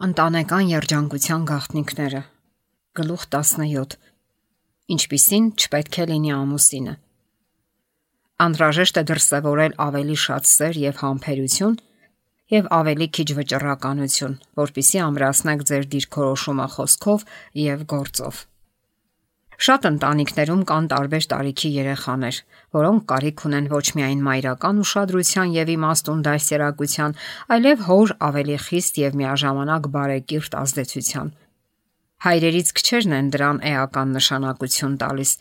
Ընտանեկան երջանկության գաղտնիքները։ Գլուխ 17. Ինչպիսին չպետք է լինի ամուսինը։ Անհրաժեշտ է դրսևորել ավելի շատ սեր եւ համբերություն եւ ավելի քիչ վճռականություն, որպեսզի ամրացնեք ձեր դիրքորոշումը խոսքով եւ գործով։ Շատ ընտանիքներում կան տարբեր տարիքի երեխաներ, որոնք կարիք ունեն ոչ միայն մայրական ուշադրության եւ իմաստուն դաստիարակության, այլև հոր ավելի խիստ եւ միաժամանակ բարեկիրթ ազդեցության։ Հայրերից քչերն են դրան էական նշանակություն տալիս։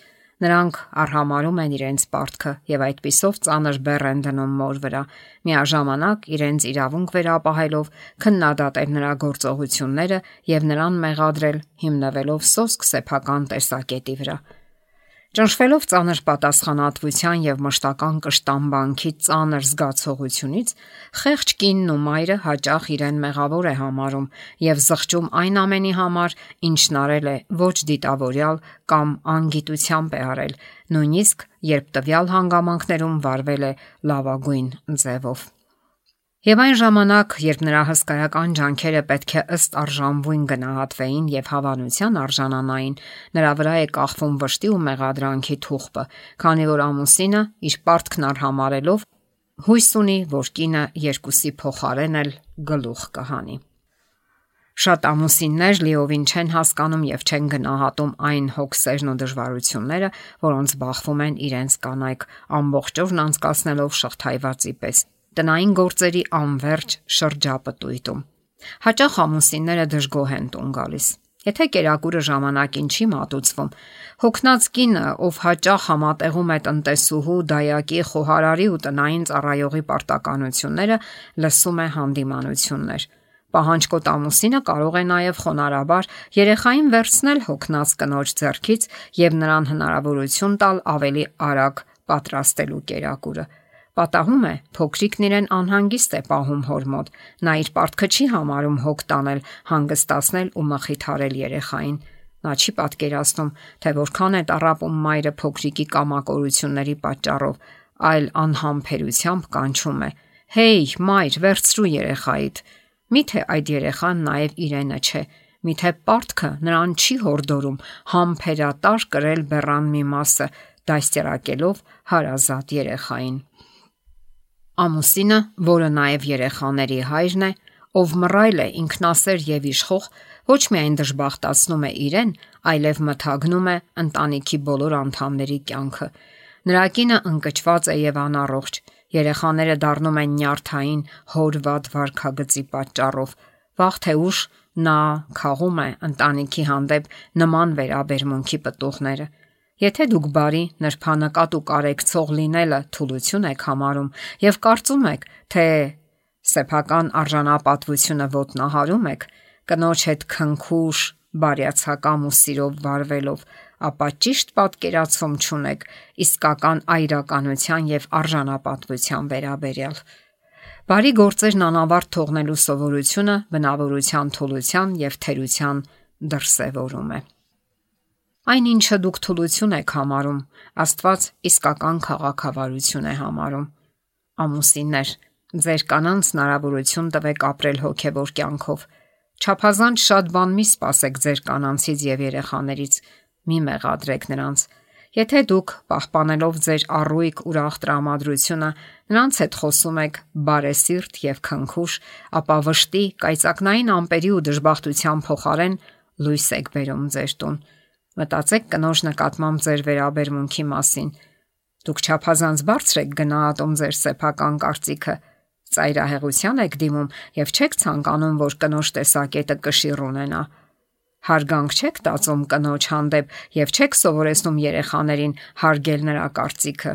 Նրանք արհամարում են իրենց պարտքը եւ այդպիսով ծանր բեռ են դնում մոր վրա, միաժամանակ իրենց իրավունք վերապահելով քննադատել նրա գործողությունները եւ նրան մեղադրել հիմնվելով սոսկ սեփական տեսակետի վրա։ Ճնշվելով ծանր պատասխանատվության եւ մշտական կշտամբանքի ծանր զգացողությունից, խեղճ կինն ու մայրը հաճախ իրեն մեղավոր է համարում եւ զղջում այն ամենի համար, ինչն արել է ոչ դիտավորյալ կամ անգիտությամբ է արել, նույնիսկ երբ տվյալ հանգամանքներում վարվել է լավագույն ձևով։ Եվ այն ժամանակ, երբ նրա հսկայական ջանքերը պետք է ըստ արժանվույն գնահատվեին եւ հավանության արժանանային, նրա վրա է կախվում վշտի ու մեղադրանքի թուղթը, քանի որ ամուսինը իր պարտքն արհամարելով հույս ունի, որ կինը երկուսի փոխարեն էլ գլուխ կհանի։ Շատ ամուսիններ լիովին չեն հասկանում եւ չեն գնահատում այն հոգսերն ու դժվարությունները, որոնց բախվում են իրենց կանայք, ամբողջ օրն անցկացնելով շղթայվածի պես տնային գործերի անverջ շրջապտույտում։ Հաճախ ամուսինները դժգոհ են տուն գալիս։ Եթե կերակուրը ժամանակին չի մատուցվում, հոգնած կինը, ով հաճախ համատեղում է տնտեսուհու, դայակի, խոհարարի ու տնային ծառայողի պարտականությունները, լսում է հանդիմանություններ։ Պահանջկոտ ամուսինը կարող է նաև խոնարհաբար երեխային վերցնել հոգնած կնոջ ձեռքից եւ նրան հնարավորություն տալ ավելի արագ պատրաստելու կերակուրը։ Պատահում է, փոքրիկն իրեն անհանգիստ է պահում հոր մոտ, նա իր պարտքը չի համարում հոգ տանել, հանգստացնել ու մխիթարել երեխային։ Նա չի պատկերացնում, թե որքան է տառապում մայրը փոքրիկի կամակորությունների պատճառով, այլ անհամբերությամբ կանչում է. «Հեյ, մայր, վերցրու երեխայիդ»։ Միթե այդ երեխան նաև իրենը չէ, միթե պարտքը նրան չի հորդորում համբերատար կրել բեռան մի մասը, դաստիարակելով հարազատ երեխային։ Ամուսինը, որը նաև երեխաների հայրն է, ով մռայլ է, ինքնասեր եւ իշխող, ոչ միայն դժբախտացնում է իրեն, այլև մթագնում է ընտանիքի բոլոր անդամների կյանքը։ Նրա կինը ընկճված է եւ անառողջ, երեխաները դառնում են նյարդային հոր վատ վարքագծի պատճառով։ Վաղ թե ուշ նա քաղում է ընտանիքի հանդեպ նման վերաբերմունքի պտուղները։ Եթե դուք բարի, նրբանկատ ու կարեկցող լինելը թուլություն եք համարում եւ կարծում եք, թե սեփական արժանապատվությունը ոտնահարում եք, կնոջ հետ քնքուշ, բարյացակամ ու սիրով վարվելով, ապա ճիշտ պատկերացում չունեք իսկական այրականության եւ արժանապատվության վերաբերյալ։ Բարի գործերն անավարտ թողնելու սովորությունը բնավորության թուլության եւ թերության դրսեւորում է։ Այն ինչը դուք թուլություն եք համարում, Աստված իսկական քաղաքավարություն է համարում։ Ամուսիններ, ձեր կանանց հնարավորություն տվեք ապրել հոգևոր կյանքով։ Չափազանց շատ բան մի սպասեք ձեր կանանցից եւ երեխաներից, մի մեղադրեք նրանց։ Եթե դուք պահպանելով ձեր առույգ ուրախ տրամադրությունը նրանց հետ խոսում եք բարեսիրտ եւ քնքուշ, ապա վշտի, կայծակնային ամպերի ու դժբախտության փոխարեն լույս եք բերում ձեր տուն։ Մտածեք կնոջ նկատմամբ ձեր վերաբերմունքի մասին։ Դուք չափազանց բարձր եք գնահատում ձեր սեփական կարծիքը, ծայրահեղության եք դիմում եւ չեք ցանկանում, որ կնոջ տեսակետը կշիռ ունենա։ Հարգանք չեք տածում կնոջ հանդեպ եւ չեք սովորեցնում երեխաներին հարգել նրա կարծիքը։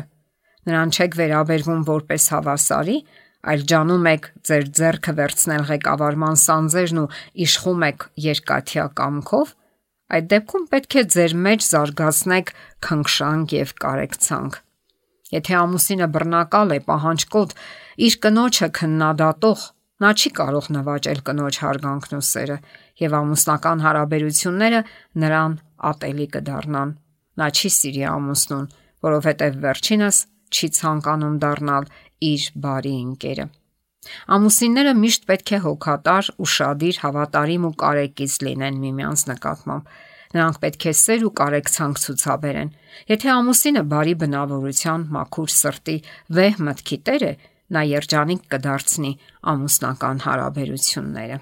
Նրան չեք վերաբերվում որպես հավասարի, այլ ջանում եք ձեր ձեռքը վերցնել ղեկավարման սանձերն ու իշխում եք երկաթյա կամքով։ Այդ դեպքում պետք է ձեր մեջ զարգացնեք քնքշանք եւ կարեկցանք։ Եթե ամուսինը բռնակալ է, պահանջկոտ, իր կնոջը քննադատող, նա չի կարող նվաճել կնոջ հարգանքն ու սերը, եւ ամուսնական հարաբերությունները նրան ատելի կդառնան։ Նա չի սիրի ամուսնուն, որովհետեւ վերջինս չի ցանկանում դառնալ իր բարի ընկերը։ Ամուսինները միշտ պետք է հոգատար, ուշադիր, հավատարիմ ու կարեկից լինեն միմյանց նկատմամբ։ Նրանք պետք է սեր ու կարեկցանք ցուցաբերեն։ Եթե ամուսինը բարի բնավորության, մաքուր սրտի, վեհ մտքի տեր է, նա երջանիկ կդարձնի ամուսնական հարաբերությունները։